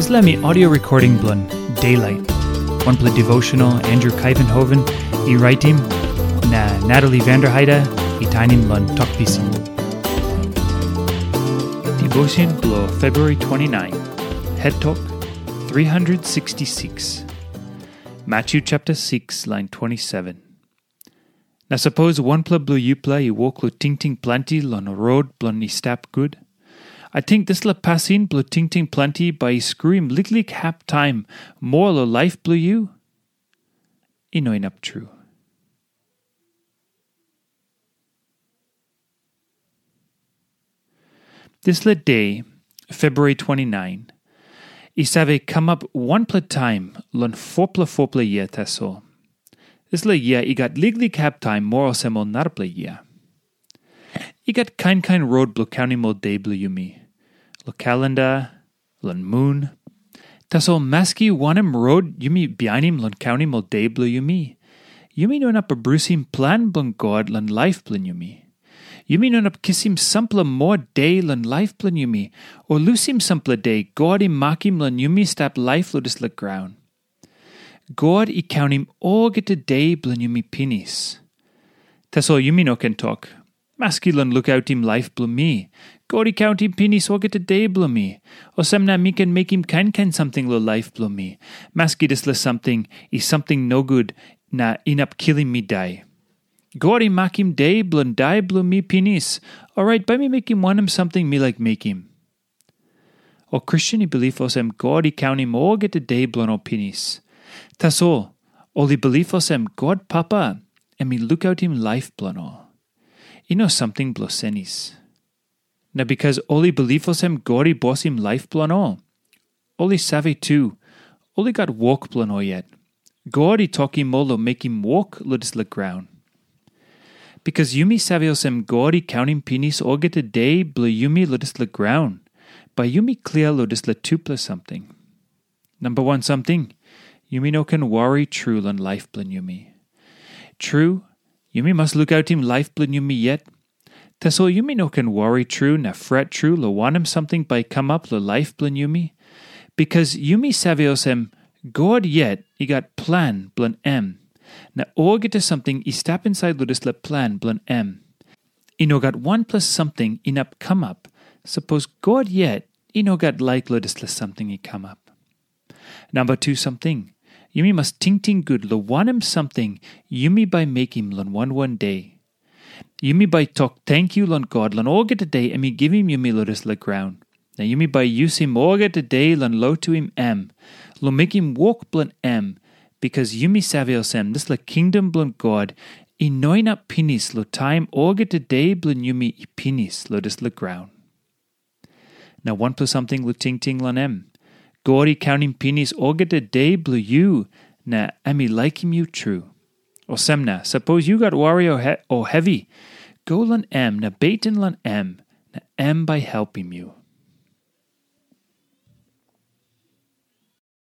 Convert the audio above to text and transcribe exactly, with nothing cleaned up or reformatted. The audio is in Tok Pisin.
Dispela mi audio recording bilong Daylight, wanpela devotional Andrew Kaivenhoven i raitim, na Natalie Vanderheide i tainim long Tok Pisin. Devotion bilong February twenty-nine, Het Tok three hundred sixty-six, Matthew chapter six, line twenty-seven. Na sapos wanpela bilong yupela i wok long tingting planti long rot bilong i stap gut, ating dispela pasin bilong tingting planti bai i skruim liklik hap taim moa long laip bilong yu? I no inap tru. Dispela de, February twenty-nine, i save kamap wanpela taim long fopela fopela yia tasol. Dispela yia i gat liklik hap taim moa olsem ol narapela yia. I gat kain kain rot bilong kaunim ol de bilong yumi, long kalenda, long mun. Tasol maski wanem rot yumi bihainim long kaunim ol de bilong yumi, yumi no inap abrusim plan bilong God long laip bilong yumi. Yumi no inap kisim sampela moa de long laip bilong yumi, o lusim sampela de God i makim long yumi stap laip long dispela graun. God i kaunim olgeta de bilong yumi pinis. Tasol yumi no ken tok, "Maski long lukautim laip bilong mi, God i kauntim pinis olgeta de bilong mi. Olsem na mi ken mekim kain kain samting long laip bilong mi, maski dispela samting i samting nogut na inap kilim mi dai. God i makim de bilong dai bilong mi pinis, orait bai mi mekim wanem samting mi laik mekim." Ol Kristen i bilip olsem God i kaunim olgeta de bilong ol pinis. Tasol ol i bilip olsem God Papa em i lukautim laip bilong ol. I no samting bilong senis. Na bikas ol i bilip olsem God i bosim laip bilong ol, ol i save tu, ol i gat wok bilong ol yet. God i tokim ol long mekim wok long dispela graun. Bikas yumi save olsem God i kaunim pinis olgeta de bilong yumi long dispela graun, bai yumi klia long dispela tupela samting. Namba wan samting, yumi no ken wari tru long laip bilong yumi. Tru, yumi mas lukautim laip bilong yumi yet. Tasol yumi no ken wari tru na fret tru long wanem samting bai i kamap long laip bilong yumi, bikas yumi save olsem, God yet i gat plan bilong em, na olgeta samting i stap insait long dispela plan bilong em. I no gat wanpela samting inap kamap, sapos God yet i no gat laik long dispela samting i kamap. Namba tu samting, yumi mas tingting gut long wanem samting yumi bai mekim long wan wan de. Yumi bai tok tenkyu long God long olgeta de em i givim yumi long dispela graun. Na yumi bai yusim olgeta de long lotuim em, long mekim wok bilong em, bikas yumi save olsem dispela kingdom bilong God i no inap pinis long taim olgeta de bilong yumi i pinis long dispela graun. Na wanpela samting long tingting long em. God i kaunim pinis olgeta de bilong yu, na em i laikim yu tru. Olsem na, sapos yu gat wari o, he, o hevi, go long em na beten long em, na em bai helpim yu.